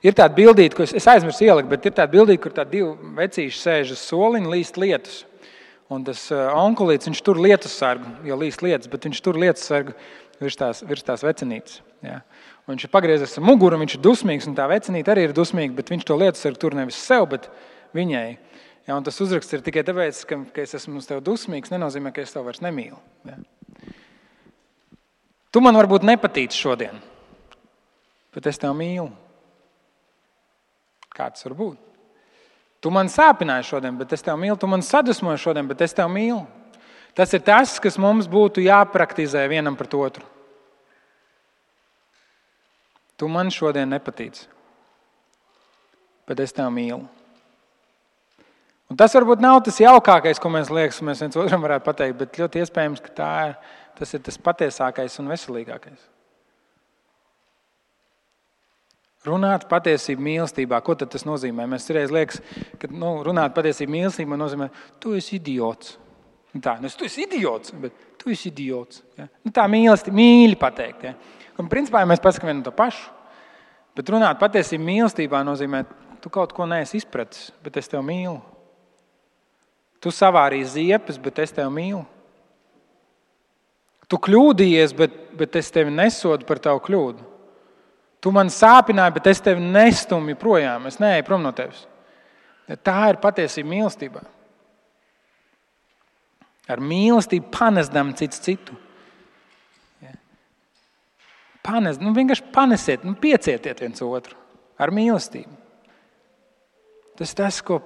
Ir tāda bildīte, ko es aizmirsu ielikt, bet ir tāda bildīte, kur tādi divi vecīši sēž uz soliņa, līst lietus. Un tas onkulīts, viņš tur lietussargu, jo līst lietas, bet viņš tur lietussargu virs tās vecinītes. Ja. Un viņš ir pagriezies ar muguru, viņš ir dusmīgs, un tā vecinīte arī ir dusmīga, bet viņš to lietussargu tur nevis sev, bet viņai. Ja, un tas uzraksts ir tikai tāpēc, ka es esmu uz tevi dusmīgs, nenozīmē, ka es tev vairs nemīlu. Ja. Tu man varbūt nepatīc šodien, bet es tev mīlu. Kā tas var būt? Tu man sāpināji šodien, bet es tev mīlu. Tu man sadusmoji šodien, bet es tev mīlu. Tas ir tas, kas mums būtu jāpraktizē vienam pret otru. Tu man šodien nepatīc, bet es tev mīlu. Un tas varbūt nav tas jaukākais, ko mēs viens otram varētu pateikt, bet ļoti iespējams, ka tas ir tas patiesākais un veselīgākais. Runāt patiesību mīlestībā, ko tad tas nozīmē? Mēs reiz liekas, ka runāt patiesību mīlestībā nozīmē, tu esi idiots. Tā, tu esi idiots, bet tu esi idiots. Ja? Tā mīlestība, mīļi pateikt. Ja? Un principā mēs pasakām vienu to pašu. Bet runāt patiesību mīlestībā nozīmē, tu kaut ko neesi izpratis, bet es tev mīlu. Tu savārīji ziepes, bet es tev mīlu. Tu kļūdījies, bet es tevi nesodu par tavu kļūdu. Tu man sāpināji, bet es tevi nestumju projām. Es neeju prom no tevis. Tā ir patiesība mīlestībā. Ar mīlestību panesdam cits citu. Vienkārši panesiet, piecietiet viens otru. Ar mīlestību. Tas, ko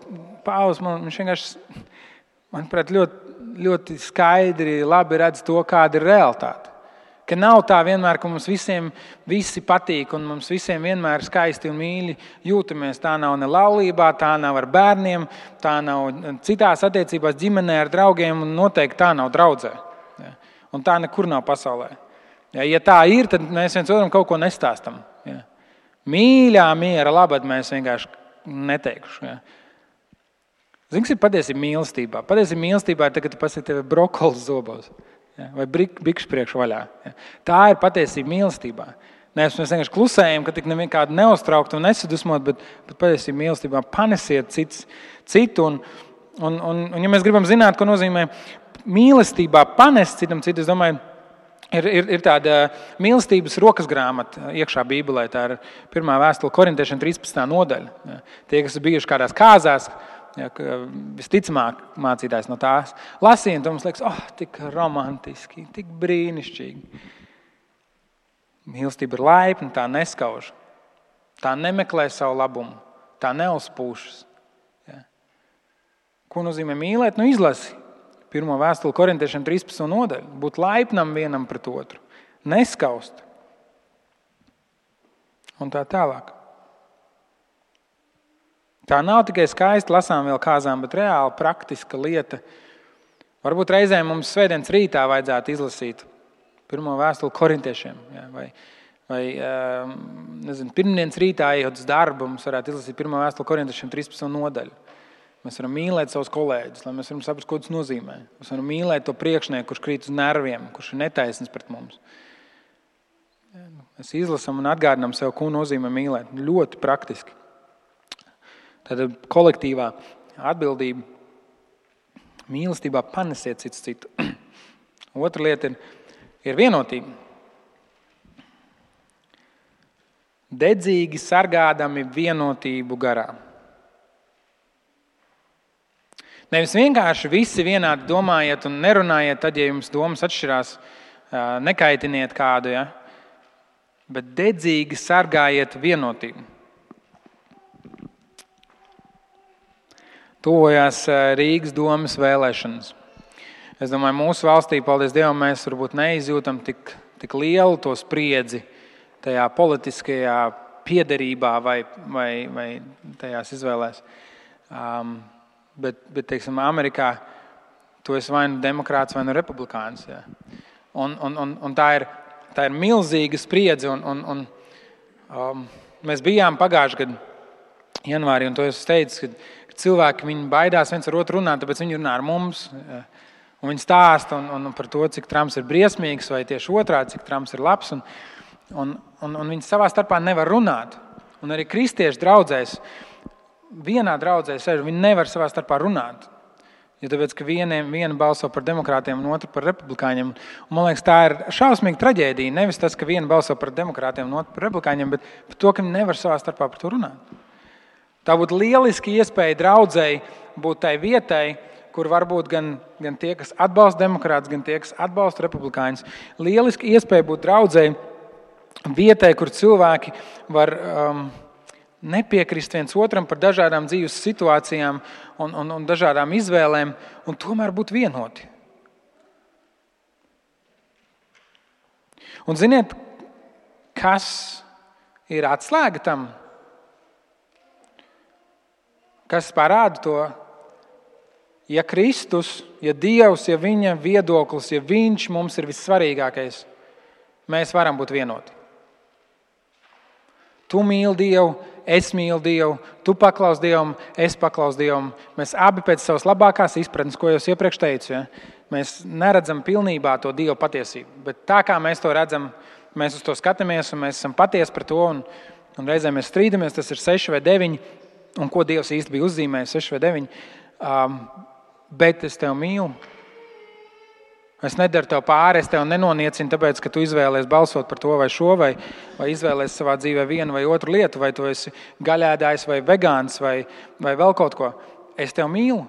Pāvils viņš vienkārši, manuprāt, ļoti skaidri, labi redz to, kāda ir realitāte. Ka nav tā vienmēr, ka mums visiem visi patīk un mums visiem vienmēr skaisti un mīļi jūtamies. Tā nav ne laulībā, tā nav ar bērniem, tā nav citās attiecībās ģimenē ar draugiem un noteikti tā nav draudzē. Ja. Un tā nekur nav pasaulē. Ja tā ir, tad mēs viens otram kaut ko nestāstam. Ja. Mīļā miera labad mēs vienkārši neteikšu. Ja. Zini, kas ir patiesība mīlestībā? Patiesība mīlestībā ir tagad, kad tu pasaki tevi brokolis zobos. Ja, vai bikšu priekšu vaļā. Ja. Tā ir patiesība mīlestībā. Mēs vienkārši klusējam, ka tik nekādu neuztraukt un nesadusmot, bet patiesība mīlestībā panesiet citu. Un ja mēs gribam zināt, ko nozīmē mīlestībā panest citam citu, es domāju, ir tāda mīlestības rokas grāmata iekšā Bībelē. Tā ir 1. vēstule Korintiešiem 13. nodaļa. Ja. Tie, kas ir bijuši kādās kāzās, ja, visticamāk mācītājs no tās lasīja, un mums liekas, tik romantiski, tik brīnišķīgi. Mīlestība ir laipna, tā neskauž. Tā nemeklē savu labumu, tā neuzpūšas. Ja. Ko nozīmē mīlēt? Izlasi 1. vēstuli Korintiešiem 13. nodaļu. Būt laipnam vienam pret otru, neskaust. Un tā tālāk. Tā nav tikai skaisti lasām vēl kāzām, bet reāli praktiska lieta. Varbūt reizēm mums svētdienas rītā vajadzētu izlasīt 1. vēstuli Korintiešiem. Ja, vai pirmdienas rītā ejot uz darbu, mums varētu izlasīt 1. vēstuli Korintiešiem 13. nodaļu. Mēs varam mīlēt savus kolēģus, lai mēs varam saprast, ko tas nozīmē. Mēs varam mīlēt to priekšnieku, kurš krīt uz nerviem, kurš ir netaisns pret mums. Mēs izlasam un atgādinām sev, ko nozīmē mīlēt. Ļoti praktiski. Tātad kolektīvā atbildība, mīlestībā panesiet cits citu. Otra lieta ir vienotība. Dedzīgi sargādami vienotību garā. Nevis vienkārši visi vienādi domājiet un nerunājiet, tad, ja jums domas atšķirās nekaitiniet kādu, ja? Bet dedzīgi sargājiet vienotību. Tuvojās Rīgas domas vēlēšanas. Es domāju, mūsu valstī, paldies Dievam, mēs varbūt neizjūtam tik lielu to spriedzi tajā politiskajā piederībā vai tajās izvēlēs. Bet teiksim, Amerikā tu esi vai nu demokrāts, vai nu republikāns. Ja. Un tā ir milzīga spriedze. Mēs bijām pagājušajā gadā janvārī, un to es teicu, ka cilvēki viņi baidās viens ar otru runāt, tāpēc viņi runā ar mums. Ja. Un viņi stāsta par to, cik Trumps ir briesmīgs, vai tieši otrādi, cik Trumps ir labs. Un viņi savā starpā nevar runāt. Un arī kristiešu draudzēs, vienā draudzē sēž, viņi nevar savā starpā runāt. Jo tāpēc, ka viena balso par demokrātiem un otra par republikāņiem. Un, man liekas, tā ir šausmīga traģēdija. Nevis tas, ka viena balso par demokrātiem un otra par republikāņiem, bet par to, ka viņi nevar savā starpā par to runāt. Tā būtu lieliski iespēja draudzēji būt tai vietai, kur varbūt gan tie, kas atbalsta demokrātus, gan tie, kas atbalsta republikāņus. Lieliski iespēja būt draudzēji vietai, kur cilvēki var nepiekrist viens otram par dažādām dzīves situācijām un dažādām izvēlēm, un tomēr būt vienoti. Un ziniet, kas ir atslēga tam? Kas parāda to? Ja Kristus, ja Dievs, ja viņa viedoklis, ja viņš mums ir vissvarīgākais, mēs varam būt vienoti. Tu mīli Dievu, es mīlu Dievu, tu paklaus Dievam, es paklaus Dievam. Mēs abi pēc savas labākās izpratnes, ko jau iepriekš teicu, ja? Mēs neredzam pilnībā to Dieva patiesību. Bet tā kā mēs to redzam, mēs uz to skatāmies un mēs esam patiesi par to. Un reizēm mēs strīdamies, tas ir 6 vai 9, un ko Dievs īsti bija uzzīmējis 6 vai 9. Bet es tevi mīlu. Es nedaru tev pāri, es tevi nenoniecinu, tāpēc, ka tu izvēlies balsot par to vai šo, vai izvēlies savā dzīvē vienu vai otru lietu, vai tu esi gaļēdājs vai vegāns vai vēl kaut ko. Es tevi mīlu.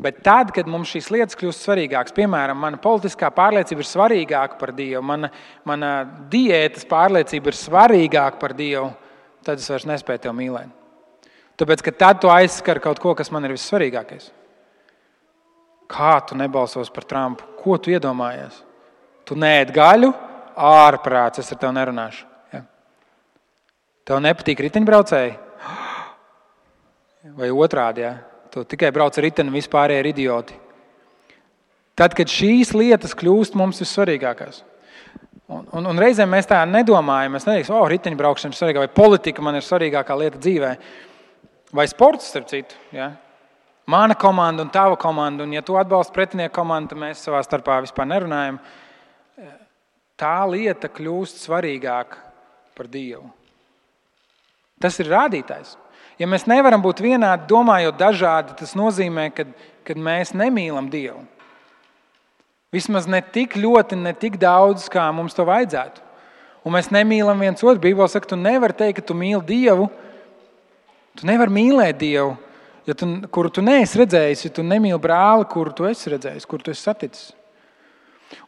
Bet tad, kad mums šīs lietas kļūst svarīgākas, piemēram, mana politiskā pārliecība ir svarīgāka par Dievu, mana diētas pārliecība ir svarīgāka par Dievu, tad es vairs nespēju tevi mīlēt. Tāpēc, ka tad tu aizskar kaut ko, kas man ir vissvarīgākais. Kā tu nebalsos par Trumpu? Ko tu iedomājies? Tu neēd gaļu? Ārprāts, es ar tevi nerunāšu. Ja? Tev nepatīk riteņbraucēji? Vai otrādi, ja? Tu tikai brauc ar riteni, vispārējie ir idioti. Tad, kad šīs lietas kļūst mums vissvarīgākās. Un reizēm mēs tā nedomājam. Mēs neteiksim, riteņbraukšana ir svarīgāka, vai politika man ir svarīgākā lieta dzīvē. Vai sports, starp citu, ja? Mana komanda un tava komanda, un ja tu atbalsti pretinieku komandu, tad mēs savā starpā vispār nerunājam. Tā lieta kļūst svarīgāka par Dievu. Tas ir rādītājs. Ja mēs nevaram būt vienādi, domājot dažādi, tas nozīmē, ka mēs nemīlam Dievu. Vismaz ne tik ļoti, ne tik daudz, kā mums to vajadzētu. Un mēs nemīlam viens otru. Bībele saka, tu nevari teikt, ka tu mīli Dievu. Tu nevari mīlēt Dievu, kuru tu neesi redzējis, ja tu nemīli brāli, kuru tu esi redzējis, kuru tu esi saticis.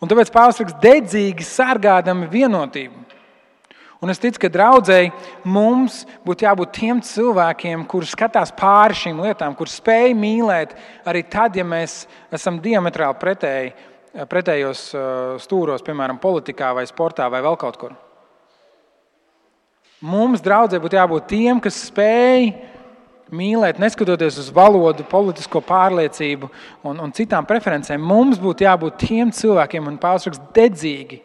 Un tāpēc Pāvils raksta, dedzīgi sargādami vienotību. Un es ticu, ka draudzēji mums būtu jābūt tiem cilvēkiem, kuri skatās pāri šīm lietām, kuri spēj mīlēt arī tad, ja mēs esam diametrāli pretējos stūros, piemēram, politikā vai sportā vai vēl kaut kur. Mums draudzē būtu jābūt tiem, kas spēj mīlēt, neskatoties uz valodu, politisko pārliecību un citām preferencēm. Mums būtu jābūt tiem cilvēkiem, un Pāvils raksta, dedzīgi.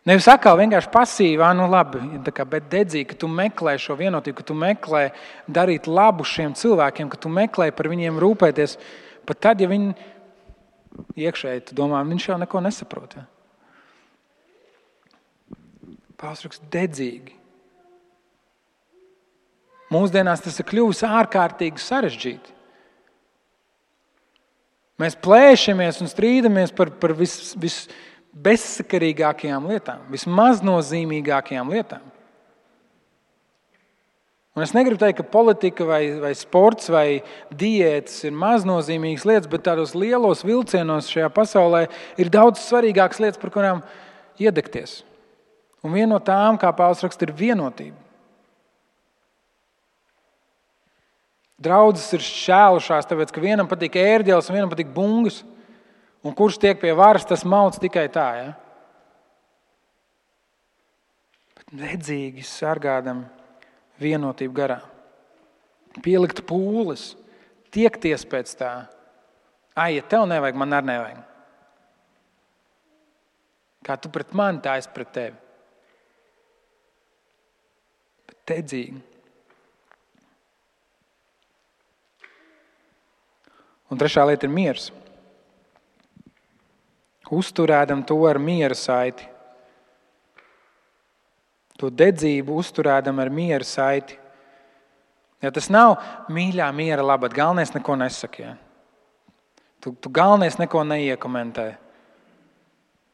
Nevis atkal vienkārši pasīvi, labi, bet dedzīgi, ka tu meklē šo vienotību, ka tu meklē darīt labu šiem cilvēkiem, ka tu meklē par viņiem rūpēties, pat tad, ja viņi iekšēji, tu domā, viņš jau neko nesaprot. Ja? Pāvils raksta, dedzīgi. Mūsdienās tas ir kļuvis ārkārtīgi sarežģīti. Mēs plēšamies un strīdamies par bezsakarīgākajām lietām, vismaznozīmīgākajām lietām. Un es negribu teikt, ka politika vai sports vai diētas ir maznozīmīgas lietas, bet tādos lielos vilcienos šajā pasaulē ir daudz svarīgākas lietas, par kurām iedegties. Un viena no tām, kā Pāvils raksta, ir vienotība. Draudzes ir šķēlušās, tāpēc, ka vienam patīk ērģeles un vienam patīk bungas. Un kurš tiek pie varas, tas mauc tikai tā. Ja? Bet dedzīgi sargādam vienotību garā. Pielikt pūles, tiekties pēc tā. Ja tev nevajag, man arī nevajag. Kā tu pret mani, tā es pret tevi. Bet dedzīgi. Un trešā lieta ir miers. Uzturēdam to ar miera saiti. To dedzību uzturēdam ar miera saiti. Ja tas nav mīļā miera labad, galvenais neko nesaka. Ja? Tu galvenais neko neiekomentē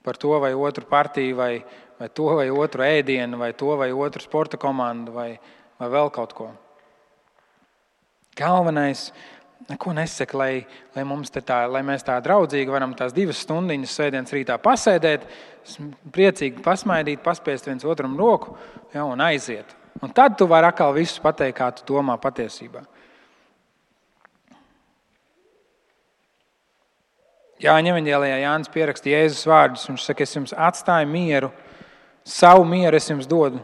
par to vai otru partiju, vai to vai otru ēdienu, vai to vai otru sporta komandu, vai vēl kaut ko. Galvenais neko nesaka, lai mēs tā draudzīgi varam tās 2 stundiņas svētdienas rītā pasēdēt, priecīgi pasmaidīt, paspiest viens otram roku, ja, un aiziet. Un tad tu vari atkal visus pateikt, kā tu domā patiesībā. Jāņa evaņģēlijā Jānis pieraksta Jēzus vārdus. Viņš saka, es jums atstāju mieru, savu mieru es jums dodu.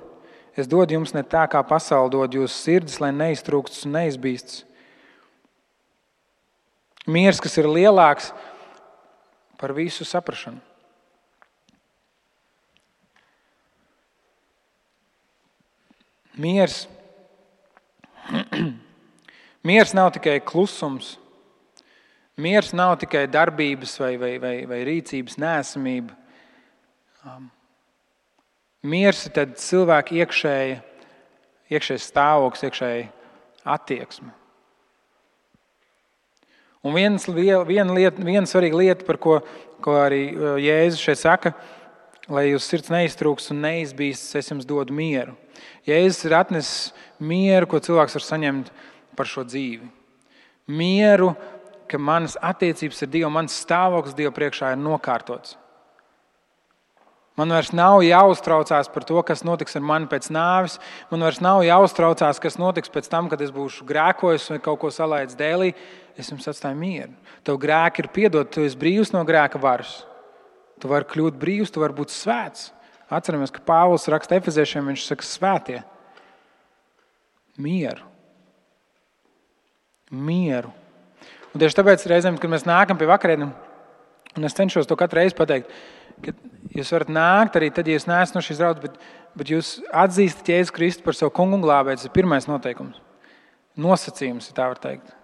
Es dodu jums ne tā, kā pasaule dod jūsu sirdis, lai neiztrūkstas un neizbīstas. Miers, kas ir lielāks par visu saprašanu. Miers. Miers nav tikai klusums. Miers nav tikai darbības vai rīcības neesamība. Miers ir tad cilvēka iekšējais stāvoklis, iekšēja attieksme. Un viena svarīga lieta, par ko arī Jēzus šeit saka, lai jūs sirds neiztrūks un neizbīstas, es jums dodu mieru. Jēzus ir atnesis mieru, ko cilvēks var saņemt par šo dzīvi. Mieru, ka manas attiecības ar Dievu, mans stāvoklis Dievu priekšā ir nokārtots. Man vairs nav jāuztraucās par to, kas notiks ar mani pēc nāves. Man vairs nav jāuztraucās, kas notiks pēc tam, kad es būšu grēkojis vai kaut ko salaidis dēlī. Es jums atstāju mieru. Tev grēki ir piedoti, tu esi brīvs no grēka varas. Tu vari kļūt brīvs, tu vari būt svēts. Atceramies, ka Pāvils raksta Efeziešiem, viņš saka svētie. Mieru. Mieru. Un tieši tāpēc reizēm, kad mēs nākam pie vakarēdienām, un es cenšos to katru reizi pateikt, ka jūs varat nākt arī tad, ja jūs neesat no šīs draudzes, bet jūs atzīstat Jēzu Kristu par savu kungu un glābēju. Tas ir pirmais noteikums. Nosacījums, ja tā var teikt,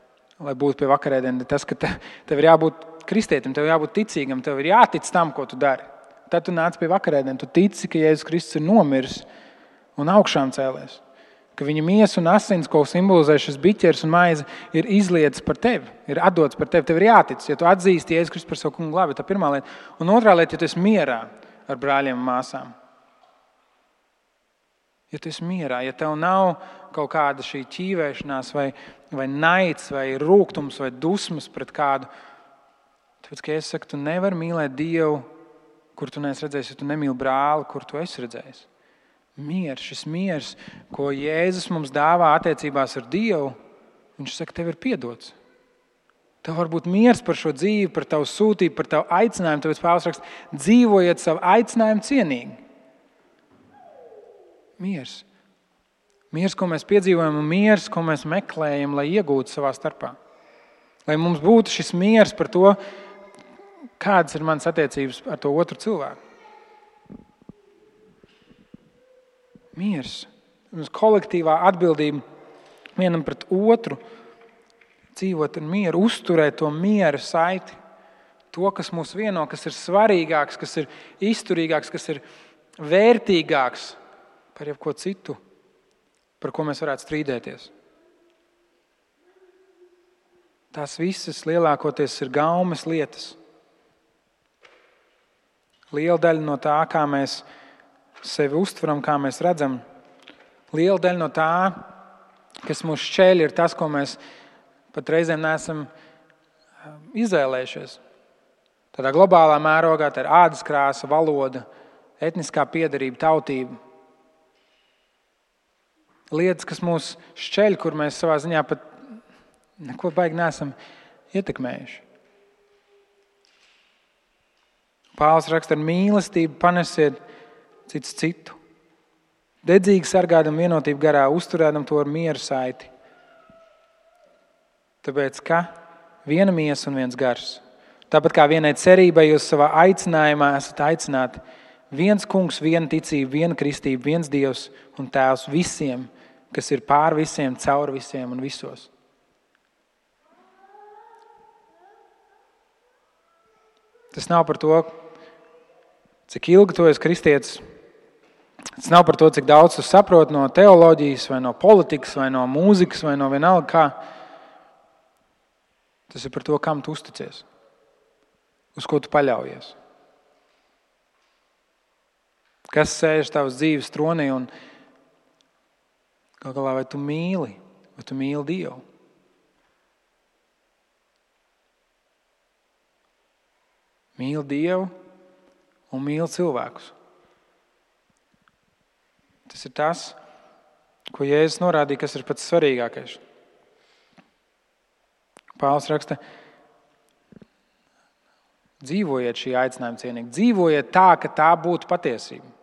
lai būtu pie vakarēdienām. Tas, ka tev ir jābūt kristietim, tev jābūt ticīgam, tev ir jātic tam, ko tu dari. Tad tu nāc pie vakarēdienām, tu tici, ka Jēzus Kristus ir nomiris un augšām cēlies. Ka viņa miesa un asins, ko simbolizē šis biķers un maize, ir izlietas par tevi, ir atdots par tevi. Tev ir jātic, ja tu atzīsti Jēzus Kristus par savu kungu glābēju, tā pirmā lieta. Un otrā lieta, ja tu esi mierā ar brāļiem un māsām. Ja tu esi mierā, ja tev nav kaut kāda šī ķīvēšanās vai naids vai rūgtums vai dusmas pret kādu, tāpēc, ka es saku, tu nevari mīlēt Dievu, kur tu neesi redzējis, ja tu nemīli brāli, kur tu esi redzējis. Miers, šis miers, ko Jēzus mums dāvā attiecībās ar Dievu, viņš saka, tev ir piedots. Tev var būt miers par šo dzīvi, par tavu sūtību, par tavu aicinājumu. Tāpēc Pāvils raksta, dzīvojiet savu aicinājumu cienīgi. Miers. Miers, ko mēs piedzīvojam, un miers, ko mēs meklējam, lai iegūtu savā starpā. Lai mums būtu šis miers par to, kādas ir manas attiecības ar to otru cilvēku. Miers. Mums kolektīvā atbildība vienam pret otru, dzīvot ar mieru, uzturēt to miera saiti. To, kas mūs vieno, kas ir svarīgāks, kas ir izturīgāks, kas ir vērtīgāks par jebko citu, par ko mēs varētu strīdēties. Tās visas lielākoties ir gaumes lietas. Liela daļa no tā, kā mēs sevi uztveram, kā mēs redzam, liela daļa no tā kas mūs šķēļ, ir tas, ko mēs pat reizēm neesam izvēlējušies. Tādā globālā mērogā tā ir ādas krāsa, valoda, etniskā piederība, tautība. Lietas, kas mūs šķeļ, kur mēs savā ziņā pat neko baigi neesam ietekmējuši. Pāvils raksta, ar mīlestību panesiet cits citu. Dedzīgi sargādam vienotību garā, uzturēdam to ar mieru saiti. Tāpēc, ka viena miesa un viens gars. Tāpat kā vienai cerībai jūs savā aicinājumā esat aicināti. Viens kungs, viena ticība, viena kristība, viens Dievs un Tēvs visiem, kas ir pār visiem, caur visiem un visos. Tas nav par to, cik ilgi tu esi kristietis. Tas nav par to, cik daudz tu saproti no teoloģijas, vai no politikas, vai no mūzikas, vai no vienalga kā. Tas ir par to, kam tu uzticies, uz ko tu paļaujies. Kas sēž tavas dzīves tronī un gal galā vai tu mīli Dievu? Mīli Dievu un mīli cilvēkus. Tas ir tas, ko Jēzus norādīja, kas ir pats svarīgākais. Pāvils raksta, dzīvojiet šī aicinājuma cienīgi. Dzīvojiet tā, ka tā būtu patiesība.